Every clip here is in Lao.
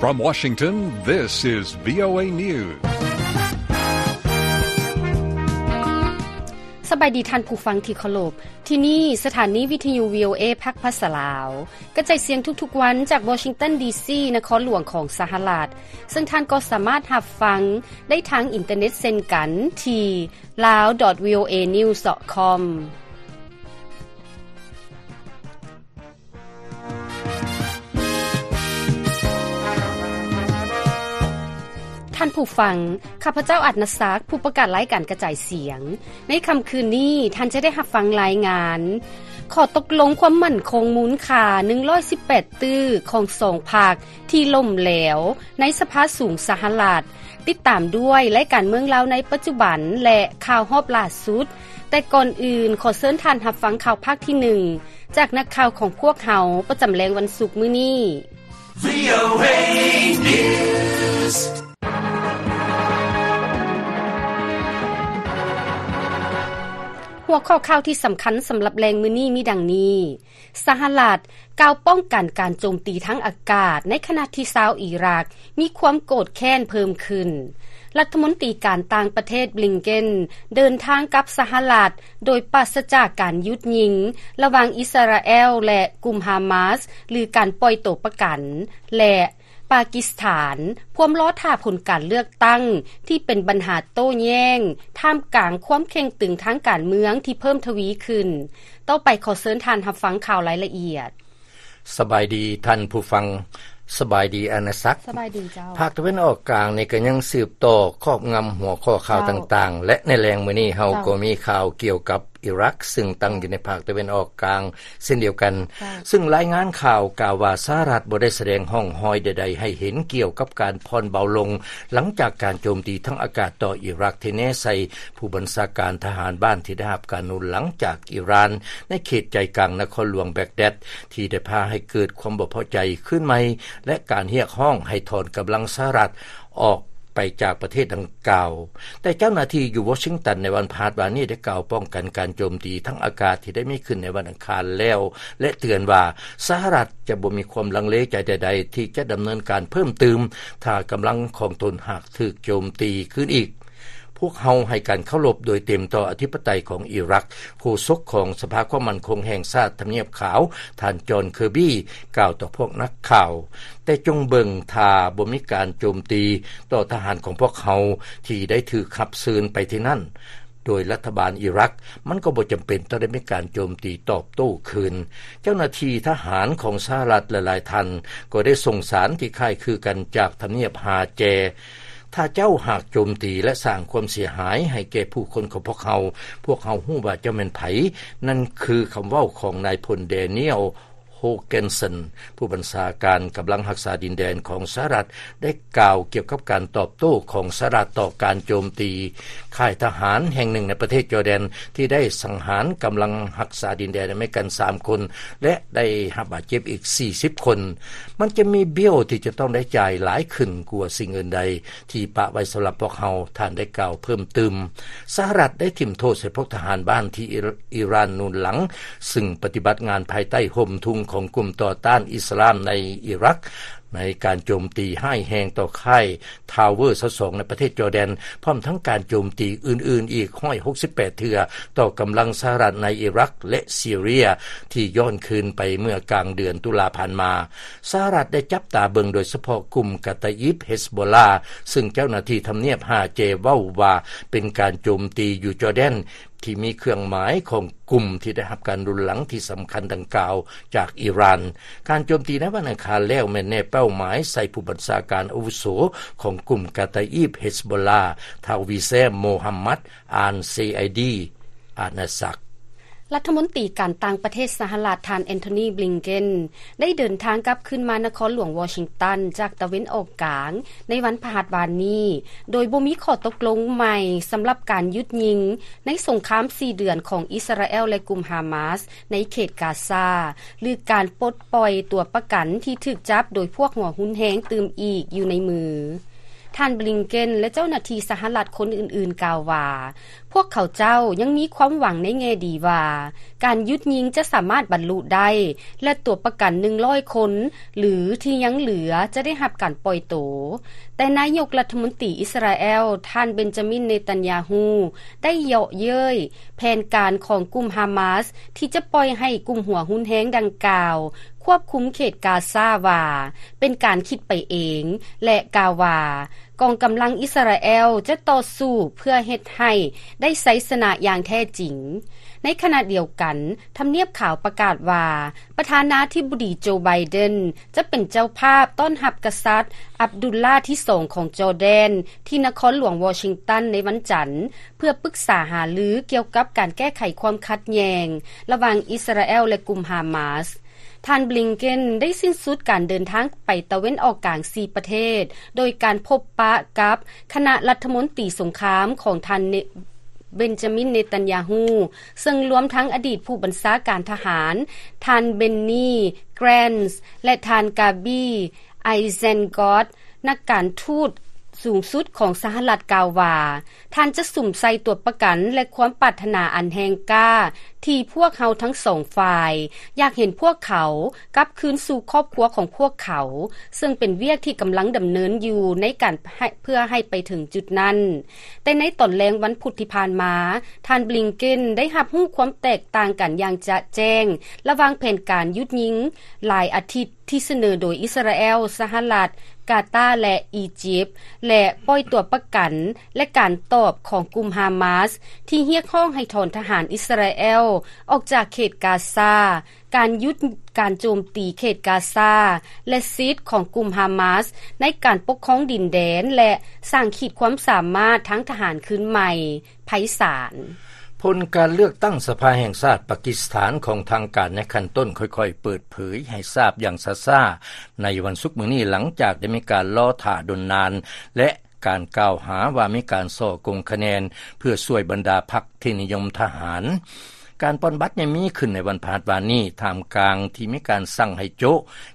From Washington, this is VOA News. ສະບາຍດີທ່ານຜູ້ຟັງທີ່ເຄົາລົບ. ທີ່ນີ້ສະຖານີວິທະຍຸ VOA ພາກພາສາລາວ ກະຈາຍສຽງທຸກໆວັນຈາກວໍຊິງຕັນ ດີຊີ ນະຄອນຫຼວງຂອງສະຫະລັດ, ເຊິ່ງທ່ານກໍສາມາດຮັບຟັງໄດ້ທາງອິນເຕີເນັດເຊັ່ນກັນທີ່ lawdotvoanews.com. ທ່ານຜູ້ຟັງ, ຂ້າພະເຈົ້າ ອາດນະສັກ, ຜູ້ປະກາດລາຍການກະຈາຍສຽງ. ໃນຄ່ຳຄືນນີ້, ທ່ານຈະໄດ້ຮັບຟັງລາຍງານ ຂໍ້ຕົກລົງຄວາມໝັ້ນຄົງມູນຄ່າ ໜຶ່ງຮ້ອຍສິບແປດ ຕື້ຂອງສອງພັກ ທີ່ລົ້ມແຫຼວໃນສະພາສູງສະຫະລັດ, ຕິດຕາມດ້ວຍລາຍການເມືອງລາວໃນປັດຈຸບັນ ແລະ ຂ່າວຮອບລ່າສຸດ. ແຕ່ກ່ອນອື່ນ, ຂໍເຊີນທ່ານຮັບຟັງຂ່າວພາກທີໜຶ່ງ ຈາກນັກຂ່າວຂອງພວກເຮົາປະຈຳແລງວັນສຸກມື້ນີ້. VOA News. ຫົວຂໍ້ຂ່າວທີ່ສຳຄັນສຳລັບແລງມື້ນີ້ມີດັ່ງນີ້. ສະຫະລັດກ່າວປ້ອງກັນການໂຈມຕີທາງອາກາດ ໃນຂະນະທີ່ຊາວອີຣັກມີຄວາມໂກດແຄ້ນເພີ່ມຂຶ້ນ. ລັດຖະມົນຕີການຕ່າງປະເທດ ບລິງເກັນ ເດີນທາງກັບສະຫະລັດ ໂດຍປາສະຈາກການຢຸດຍິງ ລະຫວ່າງອິດສະຣາແອລ ແລະ ກຸ່ມຮາມາສ ຫຼື ການປ່ອຍໂຕປະກັນ ແລະ ປາກິສຖານ ພວມລໍຖ້າຜົນການເລືອກຕັ້ງ ທີ່ເປັນບັນຫາໂຕ້ແຍ້ງ ທ່າມກາງຄວາມເຄັ່ງຕຶງທາງການເມືອງທີ່ເພີ່ມທະວີຂຶ້ນ. ຕໍ່ໄປຂໍເຊີນທ່ານຮັບຟັງຂ່າວລາຍລະອຽດ. ສະບາຍດີທ່ານຜູ້ຟັງ, ສະບາຍດີອານາສັກ. ສະບາຍດີເຈົ້າ. ພາກຕາເວັນອອກກາງນີ້ກໍຍັງສືບຕໍ່ຄອບງຳຫົວຂໍ້ຂ່າວ ເຈົ້າ ຕ່າງໆ ແລະ ໃນແລງມື້ນີ້ເຮົາ ເຈົ້າ ກໍມີຂ່າວກ່ຽວກັບ ອີຣັກ ຊຶ່ງຕັ້ງຢູ່ໃນພາກຕາເວັນອອກກາງເຊັ່ນດຽວກັນ, ເຈົ້າ ຊຶ່ງລາຍງານຂ່າວກ່າວວ່າ ສະຫະລັດບໍ່ໄດ້ສະແດງຮ່ອງຮອຍໃດໆໃຫ້ເຫັນກ່ຽວກັບການຜ່ອນເບົາລົງ ຫຼັງຈາກການໂຈມຕີທາງອາກາດຕໍ່ອີຣັກ ທີ່ແນໃສ່ຜູ້ບັນຊາການທະຫານບ້ານທີ່ໄດ້ຮັບການໜູນຫຼັງຈາກອີຣານ ໃນເຂດໃຈກາງນະຄອນຫຼວງແບັກແດັດ ທີ່ໄດ້ພາໃຫ້ເກີດຄວາມບໍ່ພໍໃຈຄືນໃໝ່ ແລະ ການຮຽກຮ້ອງໃຫ້ຖອນກຳລັງສະຫະລັດ ອອກໄປຈາກປະເທດດັ່ງກ່າວ. ແຕ່ເຈົ້າໜ້າທີ່ຢູ່ວໍຊິງຕັນໃນວັນພະຫັດວານນີ້ໄດ້ກ່າວປ້ອງກັນການໂຈມຕີທາງອາກາດທີ່ໄດ້ມີຂຶ້ນໃນວັນອັງຄານແລ້ວ ແລະ ເຕືອນວ່າສະຫະລັດຈະບໍ່ມີຄວາມລັງເລໃຈໃດໆ ທີ່ຈະດຳເນີນການເພີ່ມຕື່ມ ຖ້າກຳລັງຂອງຕົນຫາກຖືກໂຈມຕີຄືນອີກ. ພວກເຮົາໃຫ້ການເຄົາລົບໂດຍເຕັມຕໍ່ອະທິປະໄຕຂອງອີຣັກ, ໂຄສົກຂອງສະພາຄວາມໝັ້ນຄົງແຫ່ງຊາດທຳນຽບຂາວ ທ່ານ ຈອນ ເຄີບີ ກ່າວຕໍ່ພວກນັກຂ່າວ. ແຕ່ຈົ່ງເບິ່ງຖ້າບໍ່ມີການໂຈມຕີຕໍ່ທະຫານຂອງພວກເຮົາທີ່ໄດ້ຖືກຮັບເຊີນໄປທີ່ນັ້ນໂດຍລັດຖະບານອີຣັກ, ມັນກໍບໍ່ຈຳເປັນຕ້ອງໄດ້ມີການໂຈມຕີຕອບໂຕ້ຄືນ. ເຈົ້າໜ້າທີ່ທະຫານຂອງສະຫະລັດຫຼາຍໆທ່ານກໍໄດ້ສົ່ງສານທີ່ຄ້າຍຄືກັນຈາກທຳນຽບຫາແຈ. ຖ້າເຈົ້າຫາກໂຈມຕີ ແລະ ສ້າງຄວາມເສຍຫາຍໃຫ້ແກ່ຜູ້ຄົນຂອງພວກເຮົາ, ພວກເຮົາຮູ້ວ່າເຈົ້າແມ່ນໃຜ. ນັ້ນຄືຄຳເວົ້າຂອງນາຍພົນ ແດນຽວ ໂຮເກນສັນ ຜູ້ບັນຊາການກຳລັງຮັກສາດິນແດນຂອງສະຫະລັດ ໄດ້ກ່າວກ່ຽວກັບການຕອບໂຕ້ຂອງສະຫະລັດຕໍ່ການໂຈມຕີຄ້າຍທະຫານແຫ່ງໜຶ່ງໃນປະເທດຈໍແດນ ທີ່ໄດ້ສັງຫານກຳລັງຮັກສາດິນແດນອາເມລິກັນສາມຄົນ ແລະ ໄດ້ຮັບບາດເຈັບອີກສີ່ສິບຄົນ. ມັນຈະມີເບ້ຍທີ່ຈະຕ້ອງໄດ້ຈ່າຍຫຼາຍຂຶ້ນກວ່າສິ່ງອື່ນໃດ ທີ່ປະໄວ້ສຳລັບພວກເຮົາ, ທ່ານໄດ້ກ່າວເພີ່ມຕື່ມ. ສະຫະລັດໄດ້ຖິ້ມໂທດໃສ່ພວກທະຫານບ້ານທີ່ອີຣານໜູນຫຼັງ, ຊຶ່ງປະຕິບັດງານພາຍໃຕ້ຮົ່ມທຸງຂອງກຸ່ມຕໍ່ຕ້ານອິດສະລາມໃນອີຣັກ, ໃນການໂຈມຕີຮ້າຍແຮງຕໍ່ຄ້າຍທາວເວີຊາວສອງໃນປະເທດຈໍແດນ, ພ້ອມທັງການໂຈມຕີອື່ນໆອີກຮ້ອຍຫົກສິບແປດເທື່ອຕໍ່ກຳລັງສະຫະລັດໃນອີຣັກ ແລະ ຊີເຣຍ ທີ່ຍ້ອນຄືນໄປເມື່ອກາງເດືອນຕຸລາຜ່ານມາ. ສະຫະລັດໄດ້ຈັບຕາເບິ່ງໂດຍສະເພາະກຸ່ມກາຕາອີບ ເຮັສໂບລາ, ຊຶ່ງເຈົ້າໜ້າທີ່ທຳນຽບຫາແຈເວົ້າວ່າເປັນການໂຈມຕີຢູ່ຈໍແດນ ທີ່ມີເຄື່ອງໝາຍຂອງກຸ່ມທີ່ໄດ້ຮັບການໜູນຫຼັງທີ່ສຳຄັນດັ່ງກ່າວຈາກອີຣານ. ການໂຈມຕີໃນວັນອັງຄານແລ້ວແມ່ນແນເປົ້າໝາຍໃສ່ຜູ້ບັນຊາການອາວຸໂສຂອງກຸ່ມກາຕາອີບ ເຮັສໂບລາ, ທ້າວ ວິແຊມ ໂມຮັມມັດ ອານ ເຊໄອດີ ອານາສັກ. ລັດຖະມົນຕີການຕ່າງປະເທດສະຫະລັດ ທ່ານ ແອນໂທນີ ບລິງເກັນ ໄດ້ເດີນທາງກັບຄືນມານະຄອນຫຼວງວໍຊິງຕັນຈາກຕາເວັນອອກກາງໃນວັນພະຫັດວານນີ້, ໂດຍບໍ່ມີຂໍ້ຕົກລົງໃໝ່ສຳລັບການຢຸດຍິງໃນສົງຄາມສີ່ເດືອນຂອງອິດສະຣາແອລ ແລະ ກຸ່ມຮາມາສໃນເຂດກາຊາ ຫຼື ການປົດປ່ອຍຕົວປະກັນທີ່ຖືກຈັບໂດຍພວກຫົວຮຸນແຮງຕື່ມອີກຢູ່ໃນມື. ທ່ານ ບລິງເກັນ ແລະ ເຈົ້າໜ້າທີ່ສະຫະລັດຄົນອື່ນໆ ກ່າວວ່າ ພວກເຂົາເຈົ້າຍັງມີຄວາມຫວັງໃນແງ່ດີວ່າ ການຢຸດຍິງຈະສາມາດບັນລຸໄດ້ ແລະ ຕົວະປະກັນ ໜຶ່ງຮ້ອຍຄົນ ຫຼື ທີ່ຍັງເຫຼືອຈະໄດ້ຮັບການປ່ອຍໂຕ. ແຕ່ນາຍົກລັດຖະມົນຕີອິສຣາແອລ ທ່ານ ເບັນຈາມິນ ເນຕັນຍາຮູ້ ໄດ້ເຍາະເຍີ້ຍແຜນການຂອງກຸ່ມຮາມາສ ທີ່ຈະປ່ອຍໃຫ້ກຸ່ມຫົວຮຸນແຮງດັ່ງກ່າວ ຄວບຄຸມເຂດກາຊາວ່າ ເປັນການຄິດໄປເອງ ແລະ ກ່າວວ່າ ກອງກຳລັງອິສຣາແອລຈະຕໍ່ສູ້ເພື່ອເຮັດໃຫ້ໄດ້ໄຊຊະນະຢ່າງແທ້ຈິງ. ໃນຂະນະດຽວກັນ, ທຳນຽບຂາວປະກາດວ່າ ປະທານາທິບໍດີ ໂຈ ໄບເດັນ ຈະເປັນເຈົ້າພາບຕ້ອນຮັບກະສັດ ອັບດຸລລາທີສອງຂອງຈໍແດນ ທີ່ນະຄອນຫຼວງວໍຊິງຕັນໃນວັນຈັນ ເພື່ອປຶກສາຫາລືກ່ຽວກັບການແກ້ໄຂຄວາມຂັດແຍ່ງລະຫວ່າງອິສຣາແອລ ແລະ ກຸ່ມຮາມາສ. ທ່ານ ບລິງເກັນ ໄດ້ສິ້ນສຸດການເດີນທາງໄປຕາເວັນອອກກາງສີ່ປະເທດ ໂດຍການພົບປະກັບຄະນະລັດຖະມົນຕີສົງຄາມຂອງທ່ານ ເນ ເບັນຈາມິນ ເນຕັນຍາຮູ້ ເຊິ່ງລວມທັງອະດີດຜູ້ບັນຊາການທະຫານ ທ່ານ ເບັນນີ ແກຣນ ແລະ ທ່ານ ກາບີ ໄອແຊນກອດ. ນັກການທູດສູງສຸດຂອງສະຫະລັດກ່າວວ່າ ທ່ານຈະສຸມໃສ່ຕົວະປະກັນ ແລະ ຄວາມປາດຖະໜາອັນແຮງກ້າ ທີ່ພວກເຮົາທັງສອງຝ່າຍ ຢາກເຫັນພວກເຂົາກັບຄືນສູ່ຄອບຄົວຂອງພວກເຂົາ, ເຊິ່ງເປັນວຽກທີ່ກຳລັງດຳເນີນຢູ່ໃນການໃຫ້ ເພື່ອໃຫ້ໄປເຖິງຈຸດນັ້ນ. ແຕ່ໃນຕອນແລງວັນພຸດທີ່ຜ່ານມາ, ທ່ານ ບລິງເກັນ ໄດ້ຮັບຮູ້ຄວາມແຕກຕ່າງກັນຢ່າງຈະແຈ້ງ ລະຫວ່າງແຜນການຢຸດຍິງຫຼາຍອາທິດ ທີ່ສະເໜີໂດຍອິສຣາແອລ, ສະຫະລັດ, ກາຕາ ແລະ ອີຢິບ ແລະ ປ່ອຍຕົວປະກັນ ແລະ ການຕອບຂອງກຸ່ມຮາມາສ ທີ່ຮຽກຮ້ອງໃຫ້ຖອນທະຫານອິສຣາແອລອອກຈາກເຂດກາຊາ, ການຢຸດການໂຈມຕີເຂດກາຊາ ແລະ ສິດຂອງກຸ່ມຮາມາສໃນການປົກຄອງດິນແດນ ແລະ ສ້າງຂີດຄວາມສາມາດທາງທະຫານຄືນໃໝ່. ໄພສານ. ຜົນການເລືອກຕັ້ງສະພາແຫ່ງຊາດປາກິສຖານຂອງທາງການໃນຂັ້ນຕົ້ນຄ່ອຍໆເປີດເຜີຍໃຫ້ຊາບຢ່າງຊ້າໆໃນວັນສຸກມື້ນີ້ ຫຼັງຈາກໄດ້ມີການລໍຖ້າດົນນານ ແລະ ການກ່າວຫາວ່າມີການສໍ້ໂກງຄະແນນ ເພື່ອຊ່ວຍບັນດາພັກທີ່ນິຍົມທະຫານ. ການປ່ອນບັດຍັງມີຂຶ້ນໃນວັນພະຫັດວານນີ້ ທ່າມກາງທີ່ມີການສັ່ງໃຫ້ໂຈະ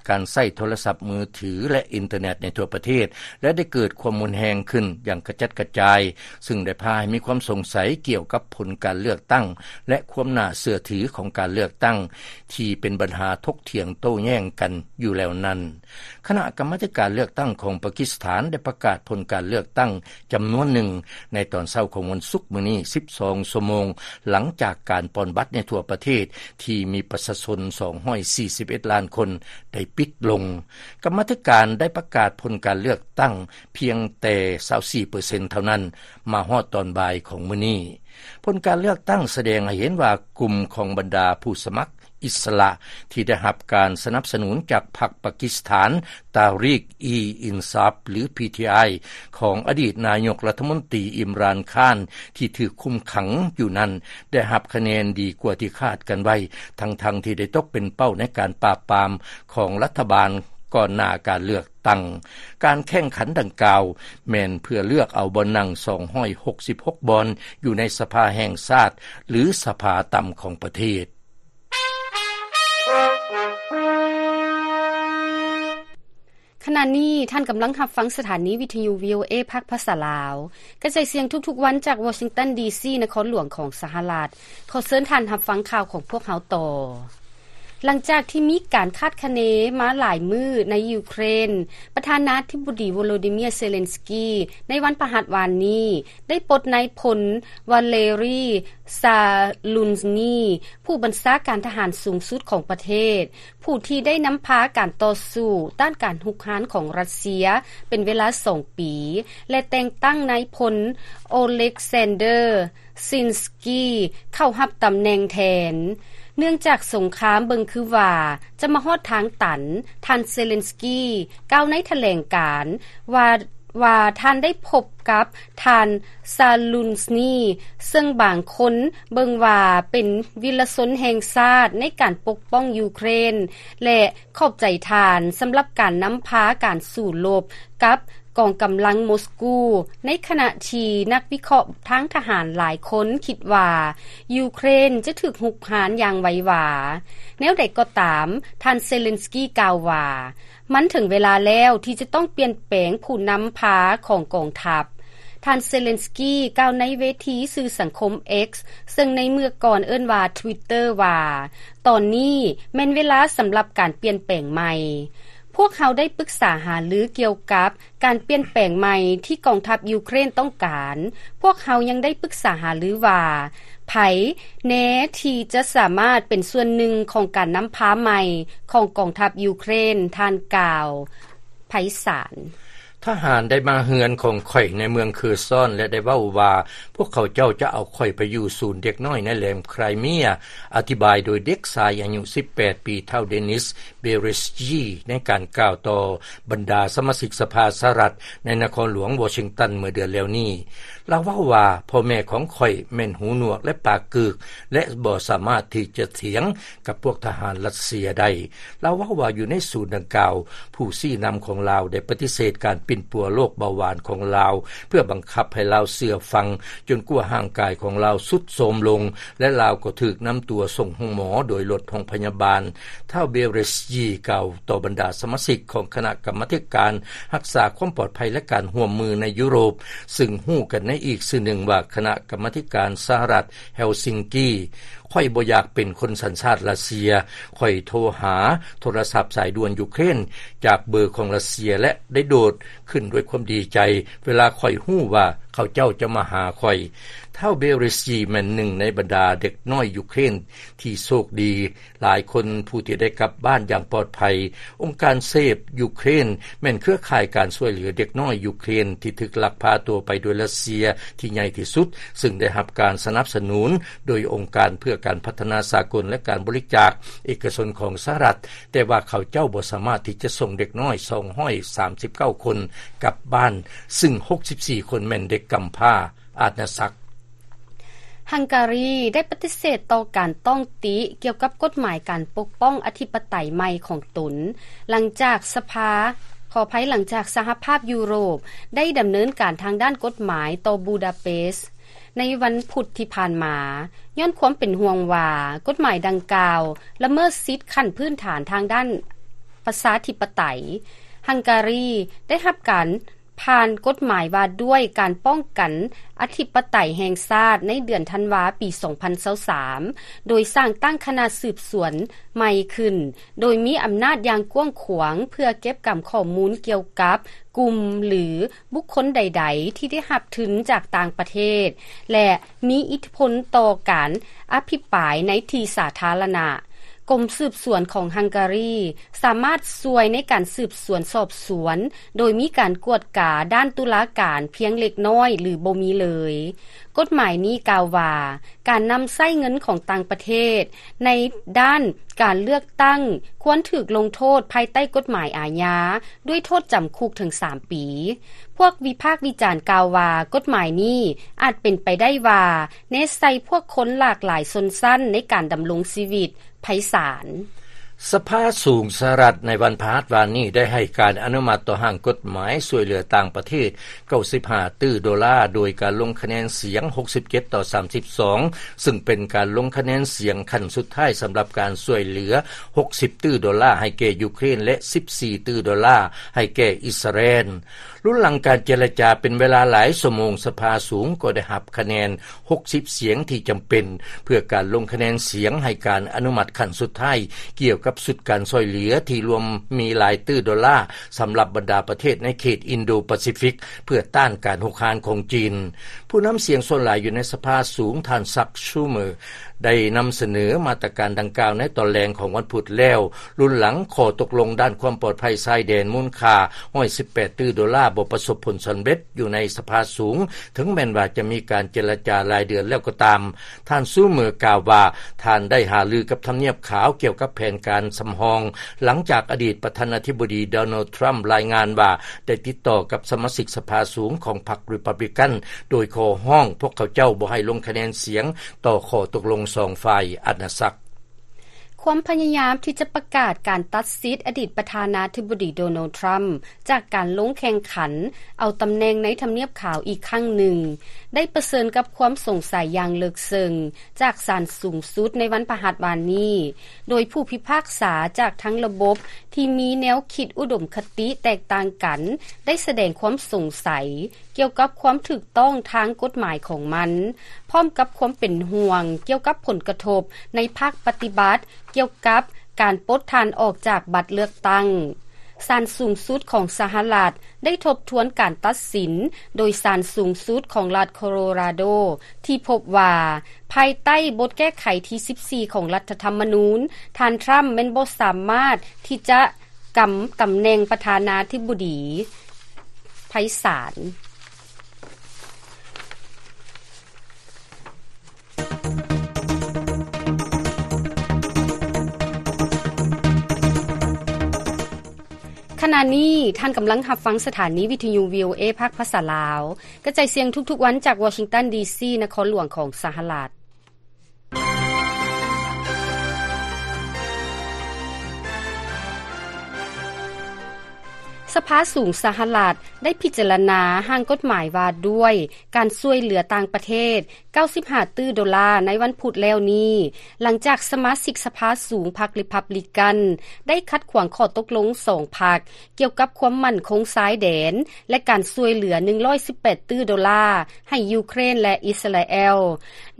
ການໃຊ້ໂທລະສັບມືຖື ແລະ ອິນເຕີເນັດໃນທົ່ວປະເທດ ແລະ ໄດ້ເກີດຄວາມຮຸນແຮງຂຶ້ນຢ່າງກະຈັດກະຈາຍ, ຊຶ່ງໄດ້ພາໃຫ້ມີຄວາມສົງໄສກ່ຽວກັບຜົນການເລືອກຕັ້ງ ແລະ ຄວາມໜ້າເຊື່ອຖືຂອງການເລືອກຕັ້ງ ທີ່ເປັນບັນຫາຖົກຖຽງໂຕ້ແຍ່ງກັນຢູ່ແລ້ວນັ້ນ. ຄະນະກຳມາທິການເລືອກຕັ້ງຂອງປາກິສຖານໄດ້ປະກາດຜົນການເລືອກຕັ້ງຈຳນວນໜຶ່ງໃນຕອນເຊົ້າຂອງວັນສຸກມື້ນີ້ ສິບສອງຊົ່ວໂມງ ຫຼັງຈາກການປ່ອນບັດໃນທົ່ວປະເທດທີ່ມີປະຊາຊົນສອງຮ້ອຍສີ່ສິບເອັດລ້ານຄົນໄດ້ປິດລົງ. ກຳມາທິການໄດ້ປະກາດຜົນການເລືອກຕັ້ງພຽງແຕ່ຊາວສີ່ເປີເຊັນເທົ່ານັ້ນ ມາຮອດຕອນບ່າຍຂອງມື້ນີ້. ຜົນການເລືອກຕັ້ງສະແດງໃຫ້ເຫັນວ່າກຸ່ມຂອງບັນດາຜູ້ສະໝັກ ອິດສະຫຼະທີ່ໄດ້ຮັບການສະໜັບສະໜູນຈາກພັກປາກິສຖານ ຕາຣີກ-ອີ-ອິນຊາບ ຫຼື ພີທີໄອ ຂອງອະດີດນາຍົກລັດຖະມົນຕີ ອິມຣານ ຄານ ທີ່ຖືກຄຸມຂັງຢູ່ນັ້ນ ໄດ້ຮັບຄະແນນດີກວ່າທີ່ຄາດກັນໄວ້, ທັງໆທີ່ໄດ້ຕົກເປັນເປົ້າໃນການປາບປາມຂອງລັດຖະບານກ່ອນໜ້າການເລືອກຕັ້ງ. ການແຂ່ງຂັນດັ່ງກ່າວແມ່ນເພື່ອເລືອກເອົາບ່ອນນັ່ງສອງຮ້ອຍຫົກສິບຫົກບ່ອນ ຢູ່ໃນສະພາແຫ່ງຊາດ ຫຼື ສະພາຕ່ຳຂອງປະເທດ. ຂະນະນີ້ທ່ານກຳລັງຮັບຟັງສະຖານີວິທະຍຸ ວີໂອເອ ພາກພາສາລາວ ກະຈາຍສຽງທຸກໆວັນຈາກວໍຊິງຕັນ ດີຊີ ນະຄອນຫຼວງຂອງສະຫະລັດ. ຂໍເຊີນທ່ານຮັບຟັງຂ່າວຂອງພວກເຮົາຕໍ່. ຫຼັງຈາກທີ່ມີການຄາດຄະເນມາຫຼາຍມື້ໃນຢູເຄຣນ, ປະທານາທິບໍດີ ໂວໂລດີເມຍ ເຊເລັນສກີ ໃນວັນພະຫັດວານນີ້ ໄດ້ປົດນາຍພົນ ວາເລຣີ ຊາລຸນສນີ ຜູ້ບັນຊາການທະຫານສູງສຸດຂອງປະເທດ, ຜູ້ທີ່ໄດ້ນຳພາການຕໍ່ສູ້ຕ້ານການຮຸກຮານຂອງຣັດເຊຍເປັນເວລາສອງປີ ແລະ ແຕ່ງຕັ້ງນາຍພົນ ໂອເລັກຊານເດີ ຊິນສກີ ເຂົ້າຮັບຕຳແໜ່ງແທນ. ເນື່ອງຈາກສົງຄາມເບິ່ງຄືວ່າຈະມາຮອດທາງຕັນ, ທ່ານ ເຊເລັນສກີ ກ່າວໃນຖະແຫຼງການວ່າ ວ່າທ່ານໄດ້ພົບກັບທ່ານ ຊາລຸນສນີ ເຊິ່ງບາງຄົນເບິ່ງວ່າເປັນວິລະຊົນແຫ່ງຊາດໃນການປົກປ້ອງຢູເຄຣນ ແລະ ຂອບໃຈທ່ານສຳລັບການນຳພາການສູ້ລົບກັບ ກອງກຳລັງໂມສກູ, ໃນຂະນະທີ່ນັກວິເຄາະທາງທະຫານຫຼາຍຄົນຄິດວ່າ ຢູເຄຣນຈະຖືກຮຸກຮານຢ່າງໄວວາ. ແນວໃດກໍຕາມ, ທ່ານເຊເລັນສກີກ່າວວ່າ ມັນເຖິງເວລາແລ້ວທີ່ຈະຕ້ອງປ່ຽນແປງຜູ້ນຳພາຂອງກອງທັບ. ທ່ານເຊເລັນສກີກ່າວໃນເວທີສື່ສັງຄົມ X ເຊິ່ງໃນເມື່ອກ່ອນເອີ້ນວ່າ Twitter ວ່າ ຕອນນີ້ແມ່ນເວລາສຳລັບການປ່ຽນແປງໃໝ່. ພວກເຮົາໄດ້ປຶກສາຫາລືກ່ຽວກັບການປ່ຽນແປງໃໝ່ທີ່ກອງທັບຢູເຄຣນຕ້ອງການ. ພວກເຮົາຍັງໄດ້ປຶກສາຫາລືວ່າ ໃຜແນ່ທີ່ຈະສາມາດເປັນສ່ວນໜຶ່ງຂອງການນຳພາໃໝ່ຂອງກອງທັບຢູເຄຣນ, ທ່ານກ່າວໄພສານ. ທະຫານໄດ້ມາເຮືອນຂອງຂ້ອຍໃນເມືອງເຄີຊອນ ແລະ ໄດ້ເວົ້າວ່າ ພວກເຂົາເຈົ້າຈະເອົາຂ້ອຍໄປຢູ່ສູນເດັກນ້ອຍໃນແຫຼມໄຄຣເມຍ, ອະທິບາຍໂດຍເດັກຊາຍອາຍຸສິບແປດປີ ທ້າວ ເດນິສ ເບເຣສກີ ໃນການກ່າວຕໍ່ບັນດາສະມາຊິກສະພາສະຫະລັດໃນນະຄອນຫຼວງວໍຊິງຕັນເມື່ອເດືອນແລ້ວນີ້. ລາວເວົ້າວ່າ ພໍ່ແມ່ຂອງຂ້ອຍແມ່ນຫູໜວກ ແລະ ປາກກືກ ແລະ ບໍ່ສາມາດທີ່ຈະຖຽງ ກັບພວກທະຫານຣັດເຊຍໄດ້. ລາວເວົ້າວ່າຢູ່ໃນສູນດັ່ງກ່າວ, ຜູ້ຊີ້ນຳຂອງລາວໄດ້ປະຕິເສດການປິ່ນປົວໂລກເບົາຫວານຂອງລາວ ເພື່ອບັງຄັບໃຫ້ລາວເຊື່ອຟັງ ຈົນກວ່າຮ່າງກາຍຂອງລາວຊຸດໂຊມລົງ ແລະ ລາວກໍຖືກນຳຕົວສົ່ງໂຮງໝໍໂດຍລົດໂຮງພະຍາບານ. ທ້າວ ເບເຣສກີ ກ່າວຕໍ່ບັນດາສະມາຊິກຂອງຄະນະກຳມາທິການຮັກສາຄວາມປອດໄພ ແລະ ການຮ່ວມມືໃນຢູໂຣບ, ຊຶ່ງຮູ້ກັນໃນອີກຊື່ໜຶ່ງວ່າຄະນະກຳມາທິການສະຫະລັດ ເຮລຊິງກີ. ຂ້ອຍບໍ່ຢາກເປັນຄົນສັນຊາດຣັດເຊຍ. ຂ້ອຍໂທຫາໂທລະສັບສາຍດ່ວນຢູເຄຣນຈາກເບີຂອງຣັດເຊຍ ແລະ ໄດ້ໂດດຂຶ້ນດ້ວຍຄວາມດີໃຈ ເວລາຂ້ອຍຮູ້ວ່າເຂົາເຈົ້າຈະມາຫາຂ້ອຍ. ທ້າວ ເບເຣສກີ ແມ່ນໜຶ່ງໃນບັນດາເດັກນ້ອຍຢູເຄຣນທີ່ໂຊກດີຫຼາຍຄົນ ຜູ້ທີ່ໄດ້ກັບບ້ານຢ່າງປອດໄພ. ອົງການ Save Ukraine ແມ່ນເຄືອຂ່າຍການຊ່ວຍເຫຼືອເດັກນ້ອຍຢູເຄຣນທີ່ຖືກລັກພາຕົວໄປໂດຍຣັດເຊຍທີ່ໃຫຍ່ທີ່ສຸດ, ຊຶ່ງໄດ້ຮັບການສະໜັບສະໜູນໂດຍອົງການເພື່ອການພັດທະນາສາກົນ ແລະ ການບໍລິຈາກເອກະຊົນຂອງສະຫະລັດ, ແຕ່ວ່າເຂົາເຈົ້າບໍ່ສາມາດທີ່ຈະສົ່ງເດັກນ້ອຍສອງຮ້ອຍສາມສິບເກົ້າຄົນກັບບ້ານ, ຊຶ່ງຫົກສິບສີ່ຄົນແມ່ນເດັກກຳພ້າອານາສັກ. ຮັງກາຣີໄດ້ປະຕິເສດຕໍ່ການຕ້ອງຕິກ່ຽວກັບກົດໝາຍການປົກປ້ອງອະທິປະໄຕໃໝ່ຂອງຕົນ, ຫຼັງຈາກສະພາ, ຂໍອະໄພ, ຫຼັງຈາກສະຫະພາບຢູໂຣບໄດ້ດຳເນີນການທາງດ້ານກົດໝາຍຕໍ່ບູດາເປສໃນວັນພຸດທີ່ຜ່ານມາ, ຍ້ອນຄວາມເປັນຫ່ວງວ່າກົດໝາຍດັ່ງກ່າວລະເມີດສິດຂັ້ນພື້ນຖານທາງດ້ານປະຊາທິປະໄຕ. ຮັງກາຣີໄດ້ຮັບການ ຜ່ານກົດໝາຍວ່າດ້ວຍການປ້ອງກັນອະທິປະໄຕແຫ່ງຊາດໃນເດືອນທັນວາປີສອງພັນຊາວສາມ ໂດຍສ້າງຕັ້ງຄະນະສືບສວນໃໝ່ຂຶ້ນ, ໂດຍມີອຳນາດຢ່າງກວ້າງຂວາງເພື່ອເກັບກຳຂໍ້ມູນກ່ຽວກັບກຸ່ມ ຫຼື ບຸກຄົນໃດໆທີ່ໄດ້ຮັບທຶນຈາກຕ່າງປະເທດ ແລະ ມີອິດທິພົນຕໍ່ການອະພິປາຍໃນທີ່ສາທາລະນະ. ກົມສືບສວນຂອງຮັງກາຣີສາມາດຊ່ວຍໃນການສືບສວນສອບສວນ ໂດຍມີການກວດກາດ້ານຕຸລາການພຽງເລັກນ້ອຍ ຫຼື ບໍ່ມີເລີຍ. ກົດໝາຍນີ້ກ່າວວ່າ ການນຳໃຊ້ເງິນຂອງຕ່າງປະເທດໃນດ້ານການເລືອກຕັ້ງຄວນຖືກລົງໂທດພາຍໃຕ້ກົດໝາຍອາຍາ ດ້ວຍໂທດຈຳຄຸກເຖິງສາມປີ. ພວກວິພາກວິຈານກ່າວວ່າ ກົດໝາຍນີ້ອາດເປັນໄປໄດ້ວ່າ ແນໃສ່ພວກຄົນຫຼາກຫຼາຍຊົນຊັ້ນໃນການດຳລົງຊີວິດ. ໄພສານ. ສະພາສູງສະຫະລັດໃນວັນພະຫັດວານນີ້ໄດ້ໃຫ້ການອະນຸມັດຕໍ່ຮ່າງກົດໝາຍຊ່ວຍເຫຼືອຕ່າງປະເທດເກົ້າສິບຫ້າຕື້ໂດລາ ໂດຍການລົງຄະແນນສຽງຫົກສິບເຈັດຕໍ່ສາມສິບສອງ ຊຶ່ງເປັນການລົງຄະແນນສຽງຂັ້ນສຸດທ້າຍສຳລັບການຊ່ວຍເຫຼືອຫົກສິບຕື້ໂດລາໃຫ້ແກ່ຢູເຄຣນ ແລະ ສິບສີ່ຕື້ໂດລາໃຫ້ແກ່ອິດສະຣາແອນ. ລຸນຫຼັງການເຈລະຈາເປັນເວລາຫຼາຍຊົ່ວໂມງ, ສະພາສູງກໍໄດ້ຮັບຄະແນນຫົກສິບສຽງທີ່ຈຳເປັນ ເພື່ອການລົງຄະແນນສຽງໃຫ້ການອະນຸມັດຂັ້ນສຸດທ້າຍ ກ່ຽວກັບຊຸດການຊ່ວຍເຫຼືອທີ່ລວມມີຫຼາຍຕື້ໂດລາ ສຳລັບບັນດາປະເທດໃນເຂດອິນໂດປາຊີຟິກ ເພື່ອຕ້ານການຮຸກຮານຂອງຈີນ. ຜູ້ນຳສຽງສ່ວນຫຼາຍຢູ່ໃນສະພາສູງ, ທ່ານ ຊັກ ຊູເມີ ໄດ້ນຳສະເໜີມາດຕະການດັ່ງກ່າວໃນຕອນແລງຂອງວັນພຸດແລ້ວ, ລຸນຫຼັງຂໍ້ຕົກລົງດ້ານຄວາມປອດໄພຊາຍແດນມູນຄ່າຮ້ອຍສິບແປດຕື້ໂດລາບໍ່ປະສົບຜົນສຳເລັດຢູ່ໃນສະພາສູງ, ເຖິງແມ່ນວ່າຈະມີການເຈລະຈາຫຼາຍເດືອນແລ້ວກໍຕາມ. ທ່ານ ຊູເມີ ກ່າວວ່າ ທ່ານໄດ້ຫາລືກັບທຳນຽບຂາວກ່ຽວກັບແຜນການສຳຮອງ, ຫຼັງຈາກອະດີດປະທານາທິບໍດີ ໂດນັລ ທຣຳ ລາຍງານວ່າ ໄດ້ຕິດຕໍ່ກັບສະມາຊິກສະພາສູງຂອງພັກຣີພັບລິກັນ ໂດຍຂໍຮ້ອງພວກເຂົາເຈົ້າບໍ່ໃຫ້ລົງຄະແນນສຽງຕໍ່ຂໍ້ຕົກລົງສອງຝ່າຍອານາຈັກ. ຄວາມພະຍາຍາມທີ່ຈະປະກາດການຕັດສິດອະດີດປະທານາທິບໍດີໂດນັລ ທຣຳ ຈາກການລົງແຂ່ງຂັນເອົາຕຳແໜ່ງໃນທຳນຽບຂາວອີກຄັ້ງໜຶ່ງ ໄດ້ປະເຊີນກັບຄວາມສົງໄສຢ່າງເລິກເຊິ່ງຈາກສານສູງສຸດໃນວັນພະຫັດວານນີ້, ໂດຍຜູ້ພິພາກສາຈາກທັງລະບົບທີ່ມີແນວຄິດອຸດົມຄະຕິແຕກຕ່າງກັນ ໄດ້ສະແດງຄວາມສົງໄສ ກ່ຽວກັບຄວາມຖືກຕ້ອງທາງກົດໝາຍຂອງມັນ, ພ້ອມກັບຄວາມເປັນຫ່ວງກ່ຽວກັບຜົນກະທົບໃນພາກປະຕິບັດ ກ່ຽວກັບການປົດທ່ານອອກຈາກບັດເລືອກຕັ້ງ. ສານສູງສຸດຂອງສະຫະລັດໄດ້ທົບທວນການຕັດສິນໂດຍສານສູງສຸດຂອງລັດໂຄໂລຣາໂດ ທີ່ພົບວ່າ ພາຍໃຕ້ບົດແກ້ໄຂທີສິບສີ່ຂອງລັດຖະທຳມະນູນ, ທ່ານທຣຳແມ່ນບໍ່ສາມາດທີ່ຈະ ກຳຕຳແໜ່ງປະທານາທິບໍດີໄພສານ. ຂະນະນີ້ທ່ານກຳລັງຮັບຟັງສະຖານີວິທະຍຸ ວີໂອເອ ພາກພາສາລາວ ກະຈາຍສຽງທຸກໆວັນຈາກວໍຊິງຕັນ ດີຊີ ນະຄອນຫຼວງຂອງສະຫະລັດ. ສະພາສູງສະຫະລັດໄດ້ພິຈາລະນາຮ່າງກົດໝາຍວ່າດ້ວຍການຊ່ວຍເຫຼືອຕ່າງປະເທດ ເກົ້າສິບຫ້າຕື້ໂດລາໃນວັນພຸດແລ້ວນີ້, ຫຼັງຈາກສະມາຊິກສະພາສູງພັກຣີພັບລິກັນ ໄດ້ຂັດຂວາງຂໍ້ຕົກລົງສອງພັກ ກ່ຽວກັບຄວາມໝັ້ນຄົງຊາຍແດນ ແລະ ການຊ່ວຍເຫຼືອ ໜຶ່ງຮ້ອຍສິບແປດຕື້ໂດລາ ໃຫ້ຢູເຄຣນ ແລະ ອິດສະຣາແອລ.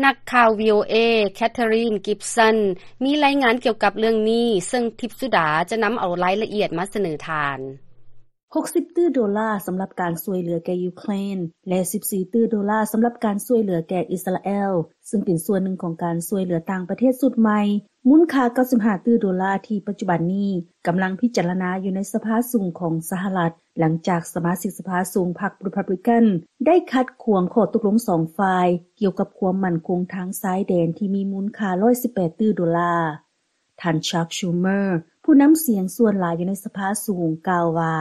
ນັກຂ່າວ ວີໂອເອ ແຄທເທຣິນ ກິບສັນ ມີລາຍງານກ່ຽວກັບເລື່ອງນີ້, ເຊິ່ງທິບສຸດາຈະນຳເອົາລາຍລະອຽດມາສະເໜີທ່ານ. ຫົກສິບຕື້ໂດລາສຳລັບການຊ່ວຍເຫຼືອແກ່ຢູເຄຣນ ແລະ ສິບສີ່ຕື້ໂດລາສຳລັບການຊ່ວຍເຫຼືອແກ່ອິດສະຣາແອລ, ເຊິ່ງເປັນສ່ວນໜຶ່ງຂອງການຊ່ວຍເຫຼືອຕ່າງປະເທດຊຸດໃໝ່ ມູນຄ່າເກົ້າສິບຫ້າຕື້ໂດລາ ທີ່ປັດຈຸບັນນີ້ກຳລັງພິຈາລະນາຢູ່ໃນສະພາສູງຂອງສະຫະລັດ, ຫຼັງຈາກສະມາຊິກສະພາສູງພັກຣີພັບລິກັນໄດ້ຂັດຂວາງຂໍ້ຕົກລົງສອງຝ່າຍກ່ຽວກັບຄວາມໝັ້ນຄົງທາງຊາຍແດນທີ່ມີມູນຄ່າຮ້ອຍສິບແປດຕື້ໂດລາ. ທ່ານ Chuck Schumer ຜູ້ນຳສຽງສ່ວນຫຼາຍຢູ່ໃນສະພາສູງ ກ່າວວ່າ,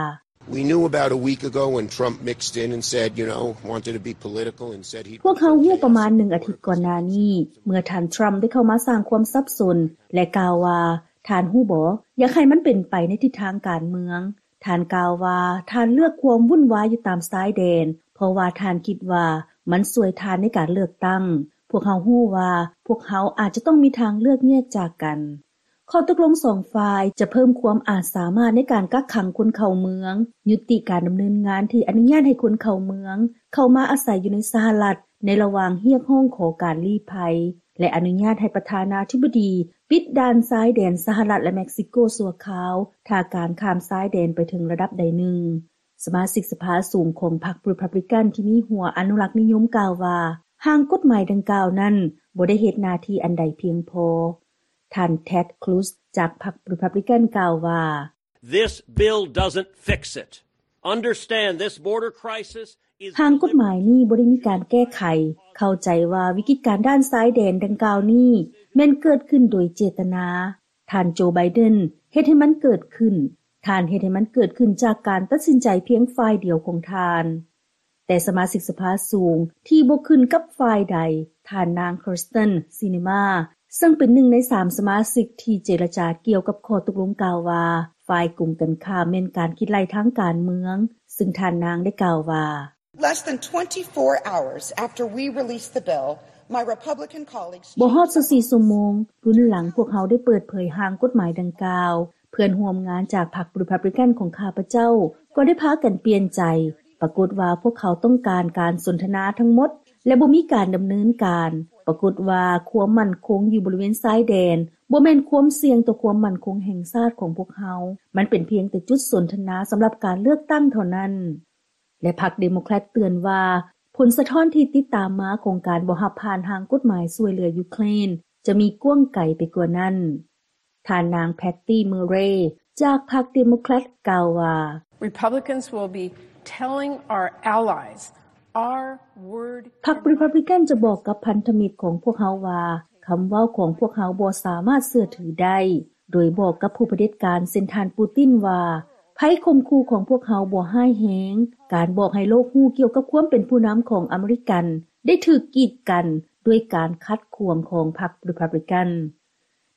We knew about a week ago when Trump mixed in and said, you know, wanted to be political and said he'd ພວກເຮົາຮູ້ປະມານໜຶ່ງອາທິດກ່ອນໜ້ານີ້ ເມື່ອທ່ານທຣຳໄດ້ເຂົ້າມາສ້າງຄວາມສັບສົນ ແລະ ກ່າວວ່າ, ທ່ານຮູ້ບໍ່, ຢາກໃຫ້ມັນເປັນໄປໃນທິດທາງການເມືອງ. ທ່ານກ່າວວ່າ ທ່ານເລືອກຄວາມວຸ້ນວາຍຢູ່ຕາມຊາຍແດນ ເພາະວ່າທ່ານຄິດວ່າມັນຊ່ວຍທ່ານໃນການເລືອກຕັ້ງ. ພວກເຮົາຮູ້ວ່າພວກເຮົາອາດຈະຕ້ອງມີທາງເລືອກແຍກຈາກກັນ. ຂໍ້ຕົກລົງສອງຝ່າຍຈະເພີ່ມຄວາມອາດສາມາດໃນການກັກຂັງຄົນເຂົ້າເມືອງ, ຍຸຕິການດຳເນີນງານທີ່ອະນຸຍາດໃຫ້ຄົນເຂົ້າເມືອງເຂົ້າມາອາໄສຢູ່ໃນສະຫະລັດໃນລະຫວ່າງຮຽກຮ້ອງຂໍການລີ້ໄພ ແລະ ອະນຸຍາດໃຫ້ປະທານາທິບໍດີປິດດ່ານຊາຍແດນສະຫະລັດ ແລະ ເມັກຊິໂກຊົ່ວຄາວ ຖ້າການຂ້າມຊາຍແດນໄປເຖິງລະດັບໃດໜຶ່ງ. ສະມາຊິກສະພາສູງຂອງພັກຣີພັບລິກັນທີ່ມີຫົວອະນຸລັກນິຍົມກ່າວວ່າ ຮ່າງກົດໝາຍດັ່ງກ່າວນັ້ນບໍ່ໄດ້ເຮັດໜ້າທີ່ອັນໃດພຽງພໍ. ທ່ານ Ted Cruz ຈາກພັກຣີພັບລິກັນກ່າວວ່າ, This bill doesn't fix it. Understand this border crisis is ຮ່າງກົດໝາຍນີ້ບໍ່ໄດ້ມີການແກ້ໄຂ. ເຂົ້າໃຈວ່າວິກິດການດ້ານຊາຍແດນດັ່ງກ່າວນີ້ແມ່ນເກີດຂຶ້ນໂດຍເຈດຕະນາ. ທ່ານ ໂຈ ໄບເດັນ ເຮັດໃຫ້ມັນເກີດຂຶ້ນ. ທ່ານເຮັດໃຫ້ມັນເກີດຂຶ້ນຈາກການຕັດສິນໃຈພຽງຝ່າຍດຽວຂອງທ່ານ. ແຕ່ສະມາຊິກສະພາສູງທີ່ບໍ່ຂຶ້ນກັບຝ່າຍໃດ, ທ່ານນາງ Kyrsten Sinema ເຊິ່ງເປັນໜຶ່ງໃນສາມສະມາຊິກທີ່ເຈລະຈາກ່ຽວກັບຂໍ້ຕົກລົງ ກ່າວວ່າ ຝ່າຍກົງກັນຂ້າມແມ່ນການຄິດໄລ່ທາງການເມືອງ, ເຊິ່ງທ່ານນາງໄດ້ກ່າວວ່າ, Less than twenty-four hours after we released the bill, my Republican colleagues ບໍ່ຮອດຊາວສີ່ຊົ່ວໂມງ ລຸນຫຼັງພວກເຮົາໄດ້ເປີດເຜີຍຮ່າງກົດໝາຍດັ່ງກ່າວ, ເພື່ອນຮ່ວມງານຈາກພັກຣີພັບລິກັນຂອງຂ້າພະເຈົ້າກໍໄດ້ພາກັນປ່ຽນໃຈ. ປາກົດວ່າພວກເຂົາຕ້ອງການການສົນທະນາທັງໝົດ ແລະ ບໍ່ມີການດຳເນີນການ. ປາກົດວ່າຄວາມໝັ້ນຄົງຢູ່ບໍລິເວນຊາຍແດນບໍ່ແມ່ນຄວາມສ່ຽງຕໍ່ຄວາມໝັ້ນຄົງແຫ່ງຊາດຂອງພວກເຮົາ. ມັນເປັນພຽງແຕ່ຈຸດສົນທະນາສຳລັບການເລືອກຕັ້ງເທົ່ານັ້ນ. ແລະ ພັກເດໂມແຄຣດເຕືອນວ່າ ຜົນສະທ້ອນທີ່ຕິດຕາມມາຂອງການບໍ່ຮັບຜ່ານຮ່າງກົດໝາຍຊ່ວຍເຫຼືອຢູເຄຣນ ຈະມີກວ້າງໄກໄປກວ່ານັ້ນ. ທ່ານນາງ Patty Murray ຈາກພັກເດໂມແຄຣດກ່າວວ່າ, Republicans will be telling our allies our word ພັກຣີພັບລິກັນຈະບອກກັບພັນທະມິດຂອງພວກເຮົາວ່າ ຄຳເວົ້າຂອງພວກເຮົາບໍ່ສາມາດເຊື່ອຖືໄດ້. ໂດຍບອກກັບຜູ້ຜະເດັດການເຊັ່ນທ່ານປູຕິນວ່າ ໄພຂົ່ມຂູ່ຂອງພວກເຮົາບໍ່ຮ້າຍແຮງ. ການບອກໃຫ້ໂລກຮູ້ກ່ຽວກັບຄວາມເປັນຜູ້ນຳຂອງອາເມລິກັນໄດ້ຖືກກີດກັນດ້ວຍການຂັດຂວາງຂອງພັກຣີພັບລິກັນ.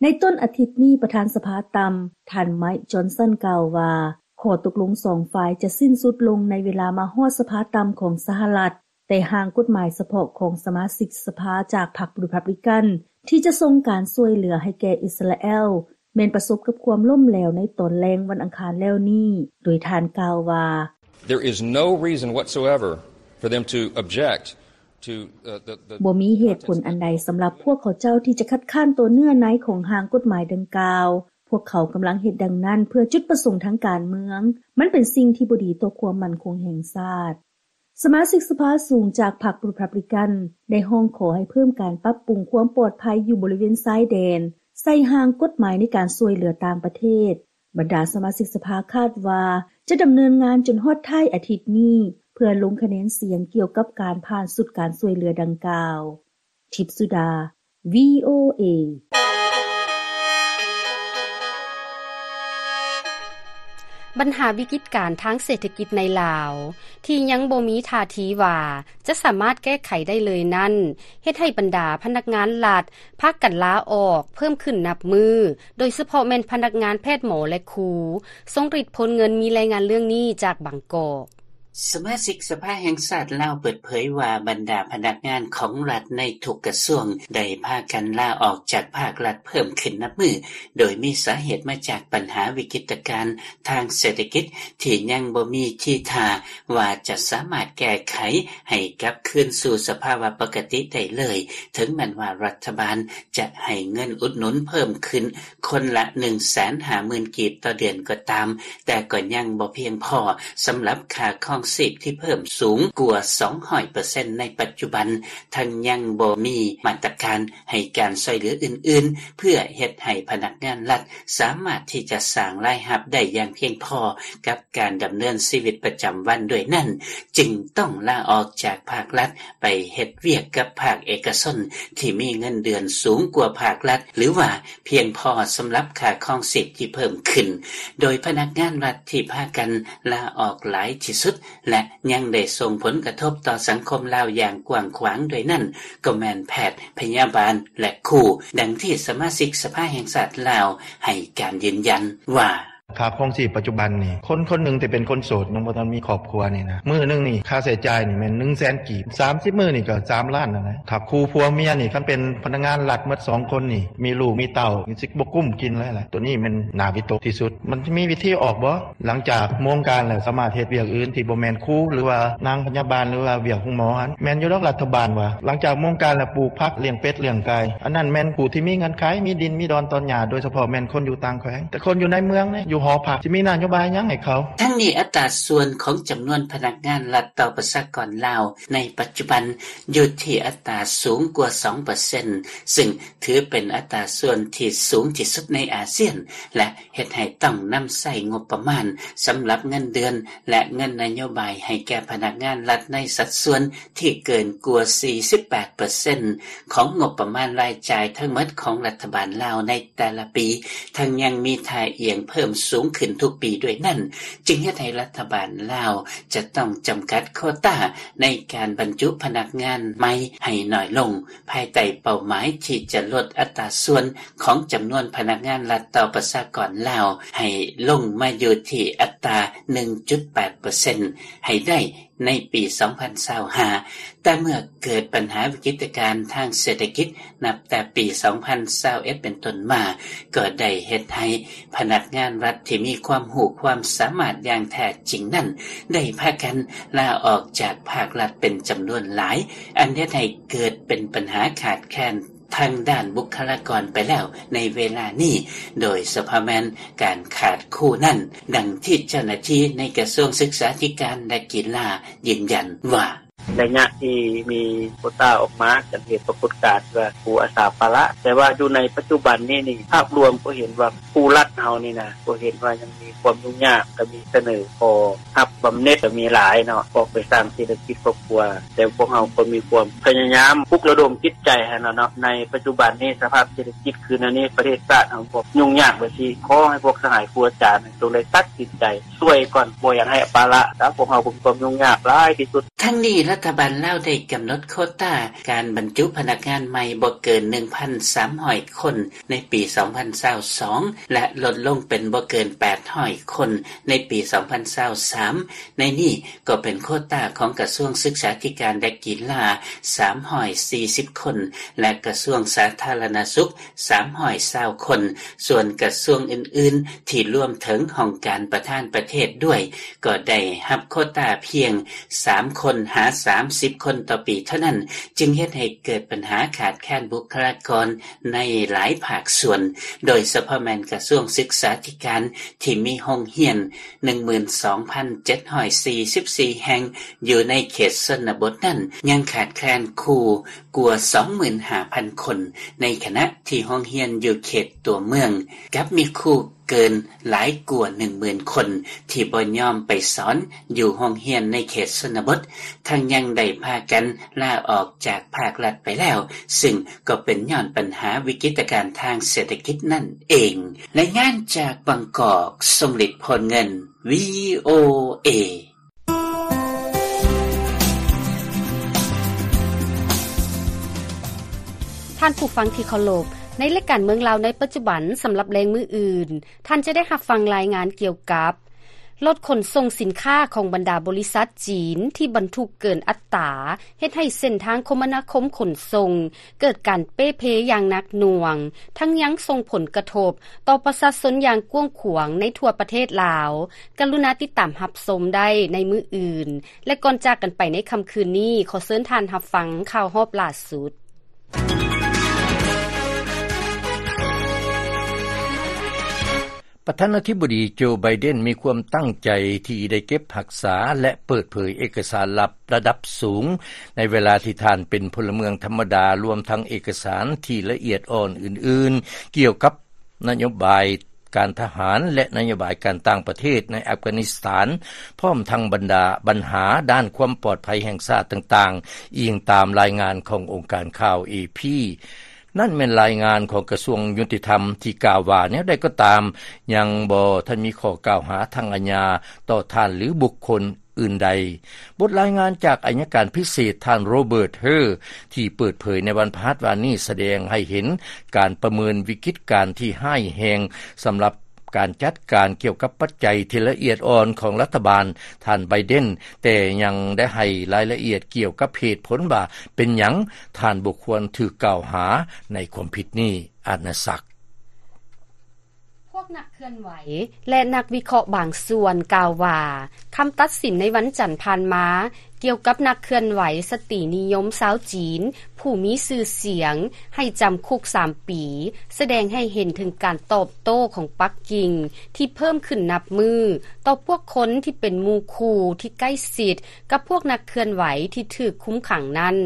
ໃນຕົ້ນອາທິດນີ້, ປະທານສະພາຕ່ຳ ທ່ານ Mike Johnson ກ່າວວ່າ ຂໍ້ຕົກລົງສອງຝ່າຍຈະສິ້ນສຸດລົງໃນເວລາມາຮອດສະພາຕ່ຳຂອງສະຫະລັດ, ແຕ່ຮ່າງກົດໝາຍສະເພາະຂອງສະມາຊິກສະພາຈາກພັກ Republican ທີ່ຈະສົ່ງການຊ່ວຍເຫຼືອໃຫ້ແກ່ອິດສະຣາແອລ ແມ່ນປະສົບກັບຄວາມລົ້ມແຫຼວໃນຕອນແລງວັນອັງຄານແລ້ວນີ້, ໂດຍທ່ານກ່າວວ່າ There is no reason whatsoever for them to object to, uh, the, the ບໍ່ມີເຫດຜົນອັນໃດສຳລັບພວກເຂົາເຈົ້າທີ່ຈະຄັດຄ້ານຕໍ່ເນື້ອໃນຂອງຮ່າງກົດໝາຍດັ່ງກ່າວ. ພວກເຂົາກຳລັງເຮັດດັ່ງນັ້ນເພື່ອຈຸດປະສົງທາງການເມືອງ. ມັນເປັນສິ່ງທີ່ບໍ່ດີຕໍ່ຄວາມໝັ້ນຄົງແຫ່ງຊາດ. ສະມາຊິກສະພາສູງຈາກພັກ Republican ໄດ້ຮ້ອງຂໍໃຫ້ເພີ່ມການປັບປຸງຄວາມປອດໄພຢູ່ບໍລິເວນຊາຍແດນ ໃສ່ຮ່າງກົດໝາຍໃນການຊ່ວຍເຫຼືອຕ່າງປະເທດ. ບັນດາສະມາຊິກສະພາຄາດວ່າຈະດຳເນີນງານຈົນຮອດທ້າຍອາທິດນີ້ ເພື່ອລົງຄະແນນສຽງກ່ຽວກັບການຜ່ານຊຸດການຊ່ວຍເຫຼືອດັ່ງກ່າວ. ທິບສຸດາ VOA. ບັນຫາວິກິດການທາງເສດຖະກິດໃນລາວ ທີ່ຍັງບໍ່ມີທ່າທີວ່າຈະສາມາດແກ້ໄຂໄດ້ເລີຍນັ້ນ ເຮັດໃຫ້ບັນດາພະນັກງານລັດພາກັນລາອອກເພີ່ມຂຶ້ນນັບມື້, ໂດຍສະເພາະແມ່ນພະນັກງານແພດ, ໝໍ ແລະ ຄູ, ຊົງຣິດພົນເງິນ. ມີລາຍງານເລື່ອງນີ້ຈາກບາງກອກ. ສະມາຊິກສະພາແຫ່ງຊາດລາວເປີດເຜີຍວ່າ ບັນດາພະນັກງານຂອງລັດໃນທຸກກະຊວງໄດ້ພາກັນລາອອກຈາກພາກລັດເພີ່ມຂຶ້ນນັບມື້, ໂດຍມີສາເຫດມາຈາກບັນຫາວິກິດຕະການທາງເສດຖະກິດທີ່ຍັງບໍ່ມີທີທ່າວ່າຈະສາມາດແກ້ໄຂໃຫ້ກັບຄືນສູ່ສະພາວະປົກກະຕິໄດ້ເລີຍ, ເຖິງແມ່ນວ່າລັດຖະບານຈະໃຫ້ເງິນອຸດໜູນເພີ່ມຂຶ້ນ ຄົນລະໜຶ່ງແສນຫ້າໝື່ນກີບຕໍ່ເດືອນກໍຕາມ, ແຕ່ກໍຍັງບໍ່ພຽງພໍສຳລັບຄ່າຄອງຊີບທີ່ເພີ່ມສູງກວ່າສອງຮ້ອຍເປີເຊັນໃນປັດຈຸບັນ, ທັງຍັງບໍ່ມີມາດຕະການໃຫ້ການຊ່ວຍເຫຼືອອື່ນໆ ເພື່ອເຮັດໃຫ້ພະນັກງານລັດສາມາດທີ່ຈະສ້າງລາຍຮັບໄດ້ຢ່າງພຽງພໍກັບການດຳເນີນຊີວິດປະຈຳວັນ. ດ້ວຍນັ້ນ, ຈຶ່ງຕ້ອງລາອອກຈາກພາກລັດໄປເຮັດວຽກກັບພາກເອກະຊົນທີ່ມີເງິນເດືອນສູງກວ່າພາກລັດ ຫຼືວ່າ ພຽງພໍສຳລັບຄ່າຄອງຊີບທີ່ເພີ່ມຂຶ້ນ, ໂດຍພະນັກງານລັດທີ່ພາກັນລາອອກຫຼາຍທີ່ສຸດ ແລະ ຍັງໄດ້ສົ່ງຜົນກະທົບຕໍ່ສັງຄົມລາວຢ່າງກວ້າງຂວາງດ້ວຍນັ້ນ ກໍແມ່ນແພດ, ພະຍາບານ ແລະ ຄູ, ດັ່ງທີ່ສະມາຊິກສະພາແຫ່ງຊາດລາວໃຫ້ການຢືນຢັນວ່າ ຄ່າຄອງຊີບປັດຈຸບັນນີ້ ຄົນຄົນໜຶ່ງທີ່ເປັນຄົນໂສດ ຍັງບໍ່ທັນມີຄອບຄົວນີ້ນະ ມື້ໜຶ່ງນີ້ຄ່າໃຊ້ຈ່າຍນີ້ແມ່ນໜຶ່ງແສນກີບ, ສາມສິບມື້ນີ້ກໍສາມລ້ານນັ້ນແຫຼະ. ຖ້າຄູ່ຜົວເມຍນີ້ ຄັນເປັນພະນັກງານລັດໝົດສອງຄົນນີ້ ມີລູກມີເຕົ້າ ຊິບໍ່ກຸ້ມກິນເລີຍແຫຼະ. ໂຕນີ້ແມ່ນໜ້າວິຕົກທີ່ສຸດ. ມັນຈະມີວິທີອອກບໍ່? ຫຼັງຈາກໂມງການແລ້ວ ສາມາດເຮັດວຽກອື່ນທີ່ບໍ່ແມ່ນຄູ ຫຼືວ່ານາງພະຍາບານ ຫຼືວ່າວຽກໂຮງໝໍຫັ້ນ. ແມ່ນຢູ່ດອກລັດຖະບານວ່າ ຫຼັງຈາກໂມງການແລ້ວ ປູກຜັກ, ລ້ຽງເປັດ, ລ້ຽງໄກ່, ອັນນັ້ນແມ່ນຜູ້ທີ່ມີເງື່ອນໄຂ, ມີດິນ, ມີດອນ, ຕອນຫຍ້າ, ໂດຍສະເພາະແມ່ນຄົນຢູ່ຕ່າງແຂວງ. ແຕ່ຄົນຢູ່ໃນເມືອງເດ້ ຢູ່ຫໍພັກ ຊິມີນະໂຍບາຍຫຍັງໃຫ້ເຂົາ? ທັງນີ້ ອັດຕາສ່ວນຂອງຈຳນວນພະນັກງານລັດຕໍ່ປະຊາກອນລາວໃນປັດຈຸບັນ ຢູ່ທີ່ອັດຕາສູງກວ່າສອງເປີເຊັນ, ຊຶ່ງຖືເປັນອັດຕາສ່ວນທີ່ສູງທີ່ສຸດໃນອາຊຽນ ແລະ ເຮັດໃຫ້ຕ້ອງນຳໃຊ້ງົບປະມານສຳລັບເງິນເດືອນ ແລະ ເງິນນະໂຍບາຍໃຫ້ແກ່ພະນັກງານລັດໃນສັດສ່ວນທີ່ເກີນກວ່າສີ່ສິບແປດເປີເຊັນຂອງງົບປະມານລາຍຈ່າຍທັງໝົດຂອງລັດຖະບານລາວໃນແຕ່ລະປີ, ທັງຍັງມີທ່າອ່ຽງເພີ່ມສູງຂຶ້ນທຸກປີດ້ວຍນັ້ນ, ຈຶ່ງເຮັດໃຫ້ລັດຖະບານລາວຈະຕ້ອງຈຳກັດໂຄຕາໃນການບັນຈຸພະນັກງານໃໝ່ໃຫ້ໜ້ອຍລົງ. ພາຍໃຕ້ເປົ້າໝາຍທີ່ຈະລົດອັດຕາສ່ວນຂອງຈຳນວນພະນັກງານລັດຕໍ່ປະຊາກອນລາວໃຫ້ລົງມາຢູ່ທີ່ອັດຕາໜຶ່ງຈຸດແປດເປີເຊັນໃຫ້ໄດ້ໃນປີສອງພັນຊາວຫ້າ, ແຕ່ເມື່ອເກີດບັນຫາວິກິດຕະການທາງເສດຖະກິດ ນັບແຕ່ປີສອງພັນຊາວເອັດເປັນຕົ້ນມາ, ກໍໄດ້ເຮັດໃຫ້ພະນັກງານລັດທີ່ມີຄວາມຮູ້ຄວາມສາມາດຢ່າງແທ້ຈິງນັ້ນ ໄດ້ພາກັນລາອອກຈາກພາກລັດເປັນຈຳນວນຫຼາຍ, ອັນເຮັດໃຫ້ ເກີດເປັນບັນຫາຂາດແຄນທາງດ້ານບຸກຄະລາກອນໄປແລ້ວໃນເວລານີ້, ໂດຍສະເພາະແມ່ນການຂາດຄູນັ້ນ, ດັ່ງທີ່ເຈົ້າໜ້າທີ່ໃນກະຊວງສຶກສາທິການ ແລະ ກິລາຢືນຢັນວ່າ ໄລຍະທີ່ມີໂຄຕາອອກມາ ຈະເຮັດປາກົດການວ່າຄູອາສາປະລະ, ແຕ່ວ່າຢູ່ໃນປັດຈຸບັນນີ້ນີ້ ພາບລວມກໍເຫັນວ່າຄູລັດເຮົານີ້ນະ ກໍເຫັນວ່າຍັງມີຄວາມຫຍຸ້ງຍາກ, ກໍມີສະເໜີຂໍ ຮັບບຳເໜັດກໍມີຫຼາຍເນາະ, ອອກໄປສ້າງເສດຖະກິດຄອບຄົວ, ແຕ່ພວກເຮົາກໍມີຄວາມພະຍາຍາມປຸກລະດົມຈິດໃຈຫັ້ນລະເນາະ. ໃນປັດຈຸບັນນີ້ສະພາບເສດຖະກິດຄືແນວນີ້ ປະເທດຊາດເຮົາກໍຫຍຸ້ງຍາກແບບຊີ້, ຂໍໃຫ້ພວກສະຫາຍຄູອາຈານຈົ່ງໄດ້ຕັດສິນໃຈຊ່ວຍກ່ອນ, ບໍ່ຢາກໃຫ້ປະລະ, ຖ້າພວກເຮົາກໍມີຄວາມຫຍຸ້ງຍາກຫຼາຍທີ່ສຸດ. ທັງນີ້ ລັດຖະບານລາວໄດ້ກຳນົດໂຄຕາການບັນຈຸພະນັກງານໃໝ່ບໍ່ເກີນ ໜຶ່ງພັນສາມຮ້ອຍຄົນໃນປີສອງພັນຊາວສອງ ແລະ ລົດລົງເປັນບໍ່ເກີນ ແປດຮ້ອຍຄົນໃນປີສອງພັນຊາວສາມ. ໃນນີ້ກໍເປັນໂຄຕາຂອງກະຊວງສຶກສາທິການ ແລະ ກິລາ ສາມຮ້ອຍສີ່ສິບຄົນ ແລະ ກະຊວງສາທາລະນະສຸກ ສາມຮ້ອຍຊາວຄົນ, ສ່ວນກະຊວງອື່ນໆ ທີ່ລວມເຖິງຫ້ອງການປະທານປະເທດດ້ວຍ ກໍໄດ້ຮັບໂຄຕາພຽງສາມຄົນຫາສາມສິບຄົນຕໍ່ປີເທົ່ານັ້ນ, ຈຶ່ງເຮັດໃຫ້ເກີດບັນຫາຂາດແຄນບຸກຄະລາກອນໃນຫຼາຍພາກສ່ວນ, ໂດຍສະເພາະແມ່ນກະຊວງສຶກສາທິການ ທີ່ມີໂຮງຮຽນ ໜຶ່ງໝື່ນສອງພັນເຈັດຮ້ອຍສີ່ສິບສີ່ແຫ່ງ ຢູ່ໃນເຂດຊົນນະບົດນັ້ນ ຍັງຂາດແຄນຄູກວ່າ ສອງໝື່ນຫ້າພັນຄົນ, ໃນຂະນະທີ່ໂຮງຮຽນຢູ່ເຂດຕົວເມືອງ ກັບມີຄູເກີນຫຼາຍກວ່າ ໜຶ່ງໝື່ນຄົນ ທີ່ບໍ່ຍອມໄປສອນຢູ່ໂຮງຮຽນໃນເຂດຊົນນະບົດ, ທັງຍັງໄດ້ພາກກັນລາອອກຈາກພາກລັດໄປແລ້ວ, ຊຶ່ງກໍເປັນຍ້ອນບັນຫາວິກິດຕະການທາງເສດຖະກິດນັ້ນເອງ. ລາຍງານຈາກບາງກອກ, ຊົງລິດ ໂພນເງິນ ວີໂອເອ. ທ່ານຜູ້ຟັງທີ່ເຄົາລົບ, ໃນລາຍການເມືອງລາວໃນປັດຈຸບັນ ສຳລັບແລງມື້ອື່ນ, ທ່ານຈະໄດ້ຮັບຟັງລາຍງານກ່ຽວກັບ ລົດຂົນສົ່ງສິນຄ້າຂອງບັນດາບໍລິສັດຈີນທີ່ບັນທຸກເກີນອັດຕາ ເຮັດໃຫ້ເສັ້ນທາງຄົມມະນາຄົມຂົນສົ່ງ ເກີດການເປ່ເພຢ່າງໜັກໜ່ວງ, ທັງຍັງສົ່ງຜົນກະທົບຕໍ່ປະຊາຊົນຢ່າງກວ້າງຂວາງໃນທົ່ວປະເທດລາວ. ກະລຸນາຕິດຕາມຮັບຊົມໄດ້ໃນມື້ອື່ນ ແລະ ກ່ອນຈາກກັນໄປໃນຄ່ຳຄືນນີ້, ຂໍເຊີນທ່ານຮັບຟັງຂ່າວຮອບລ່າສຸດ. ປະທານາທິບໍດີໂຈ ໄບເດັນ ມີຄວາມຕັ້ງໃຈທີ່ໄດ້ເກັບຮັກສາ ແລະ ເປີດເຜີຍເອກະສານລັບລະດັບສູງ ໃນເວລາທີ່ທ່ານເປັນພົນລະເມືອງທຳມະດາ, ລວມທັງເອກະສານທີ່ລະອຽດອ່ອນອື່ນໆ ກ່ຽວກັບນະໂຍບາຍການທະຫານ ແລະ ນະໂຍບາຍການຕ່າງປະເທດໃນອັຟການິສຖານ, ພ້ອມທັງບັນດາບັນຫາດ້ານຄວາມປອດໄພແຫ່ງຊາດຕ່າງໆ, ອີງຕາມລາຍງານຂອງອົງການຂ່າວ ເອພີ. ນັ້ນແມ່ນລາຍງານຂອງກະຊວງຍຸຕິທຳທີ່ກ່າວວ່າ ແນວໃດກໍຕາມ ຍັງບໍ່ທັນມີຂໍ້ກ່າວຫາທາງອາຍາຕໍ່ທ່ານ ຫຼື ບຸກຄົນອື່ນໃດ. ບົດລາຍງານຈາກອັຍການພິເສດ ທ່ານ ໂຣເບີດ ເຮີ ທີ່ເປີດເຜີຍໃນວັນພະຫັດວານນີ້ ສະແດງໃຫ້ເຫັນການປະເມີນວິກິດການທີ່ຮ້າຍແຮງ ສຳລັບການຈັດການກ່ຽວກັບປັດໄຈທີ່ລະອຽດອ່ອນຂອງລັດຖະບານທ່ານ ໄບເດັນ, ແຕ່ຍັງໄດ້ໃຫ້ລາຍລະອຽດກ່ຽວກັບເຫດຜົນວ່າເປັນຫຍັງທ່ານບໍ່ຄວນຖືກກ່າວຫາໃນຄວາມຜິດນີ້. ອາດນະສັກ. ພວກນັກເຄື່ອນໄຫວ ແລະ ນັກວິເຄາະບາງສ່ວນກ່າວວ່າ ຄຳຕັດສິນໃນວັນຈັນຜ່ານມາ ກ່ຽວກັບນັກເຄື່ອນໄຫວສະຕີນິຍົມຊາວຈີນ ຜູ້ມີຊື່ສຽງ ໃຫ້ຈຳຄຸກສາມປີ ສະແດງໃຫ້ເຫັນເຖິງການຕອບໂຕ້ຂອງປັກກິ່ງ ທີ່ເພີ່ມຂຶ້ນນັບມື້ ຕໍ່ພວກຄົນທີ່ເປັນໝູ່ຄູ່ທີ່ໃກ້ຊິດກັບພວກນັກເຄື່ອນໄຫວທີ່ຖືກຄຸມຂັງນັ້ນ.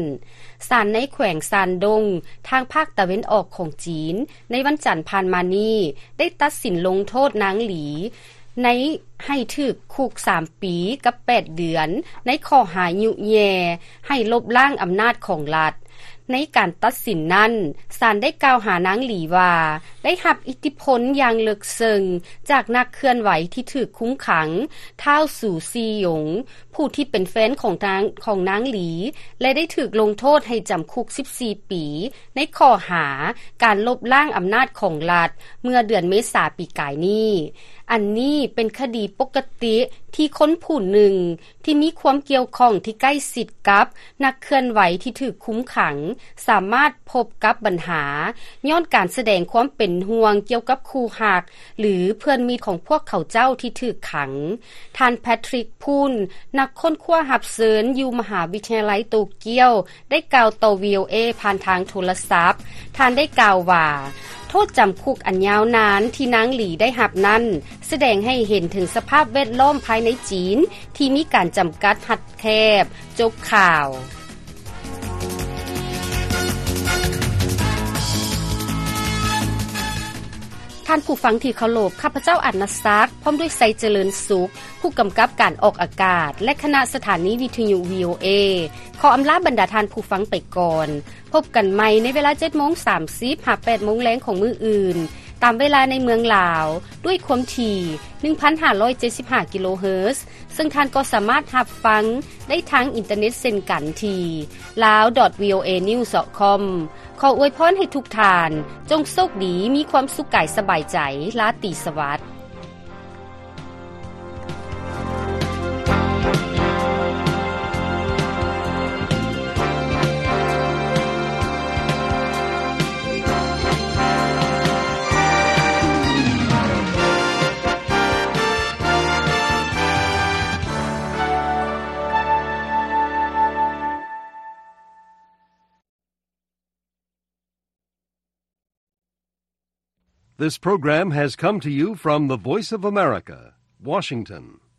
ສານໃນແຂວງຊານດົງ ທາງພາກຕາເວັນອອກຂອງຈີນ ໃນວັນຈັນຜ່ານມານີ້ ໄດ້ຕັດສິນລົງໂທດນາງຫຼີ ໃນ ໃຫ້ຖືກຄຸກສາມປີກັບແປດເດືອນ ໃນຂໍ້ຫາຍຸແຍ່ໃຫ້ລົບລ້າງອຳນາດຂອງລັດ. ໃນການຕັດສິນນັ້ນ, ສານໄດ້ກ່າວຫານາງຫຼີວ່າ ໄດ້ຮັບອິດທິພົນຢ່າງເລິກເຊິ່ງຈາກນັກເຄື່ອນໄຫວທີ່ຖືກຄຸມຂັງ ທ້າວ ສູຊີຢົງ ຜູ້ທີ່ເປັນແຟນຂອງນາງ, ຂອງນາງຫຼີ ແລະ ໄດ້ຖືກລົງໂທດໃຫ້ຈຳຄຸກສິບສີ່ປີ ໃນຂໍ້ຫາການລົບລ້າງອຳນາດຂອງລັດ ເມື່ອເດືອນເມສາປີກາຍນີ້. ອັນນີ້ເປັນຄະດີປົກກະຕິທີ່ຄົນຜູ້ໜຶ່ງທີ່ມີຄວາມກ່ຽວຂ້ອງທີ່ໃກ້ຊິດກັບນັກເຄື່ອນໄຫວທີ່ຖືກຄຸມຂັງ ສາມາດພົບກັບບັນຫາ ຍ້ອນການສະແດງຄວາມເປັນຫ່ວງກ່ຽວກັບຄູ່ຮັກ ຫຼື ເພື່ອນມິດຂອງພວກເຂົາເຈົ້າທີ່ຖືກຂັງ. ທ່ານ ແພັດທຣິກ ພຸນ ນັກຄົ້ນຄວ້າຮັບເຊີນຢູ່ມະຫາວິທະຍາໄລໂຕກຽວ ໄດ້ກ່າວຕໍ່ ວີໂອເອ ຜ່ານທາງໂທລະສັບ. ທ່ານໄດ້ກ່າວວ່າ ໂທດຈຳຄຸກອັນຍາວນານທີ່ນາງຫຼີໄດ້ຮັບນັ້ນ ສະແດງໃຫ້ເຫັນເຖິງສະພາບແວດລ້ອມພາຍໃນຈີນທີ່ມີການຈຳກັດຮັດແຄບ. ຈົບຂ່າວ. ທ່ານຜູ້ຟັງທີ່ເຄົາລົບ, ຂ້າພະເຈົ້າ ອາດນະສັກ ພ້ອມດ້ວຍ ໄຊຈະເລີນສຸກ ຜູ້ກຳກັບການອອກອາກາດ ແລະ ຄະນະສະຖານີວິທະຍຸ ວີໂອເອ ຂໍອຳລາບັນດາທ່ານຜູ້ຟັງໄປກ່ອນ. ພົບກັນໃໝ່ໃນເວລາເຈັດໂມງສາມສິບ ຫາ ແປດໂມງແລງຂອງມື້ອື່ນ. ຕາມເວລາໃນເມືອງລາວ ດ້ວຍຄວາມຖີ່ ໜຶ່ງພັນຫ້າຮ້ອຍເຈັດສິບຫ້າ ກິໂລເຮີດ ເຊິ່ງທ່ານກໍສາມາດຮັບຟັງໄດ້ທາງອິນເຕີເນັດເຊັ່ນກັນທີ່ lawdotvoanews.com. ຂໍອວຍພອນໃຫ້ທຸກທ່ານ ຈົ່ງໂຊກດີ, ມີຄວາມສຸກກາຍສະບາຍໃຈ, ລາຕີສະຫວັດ. This program has come to you from the Voice of America, Washington.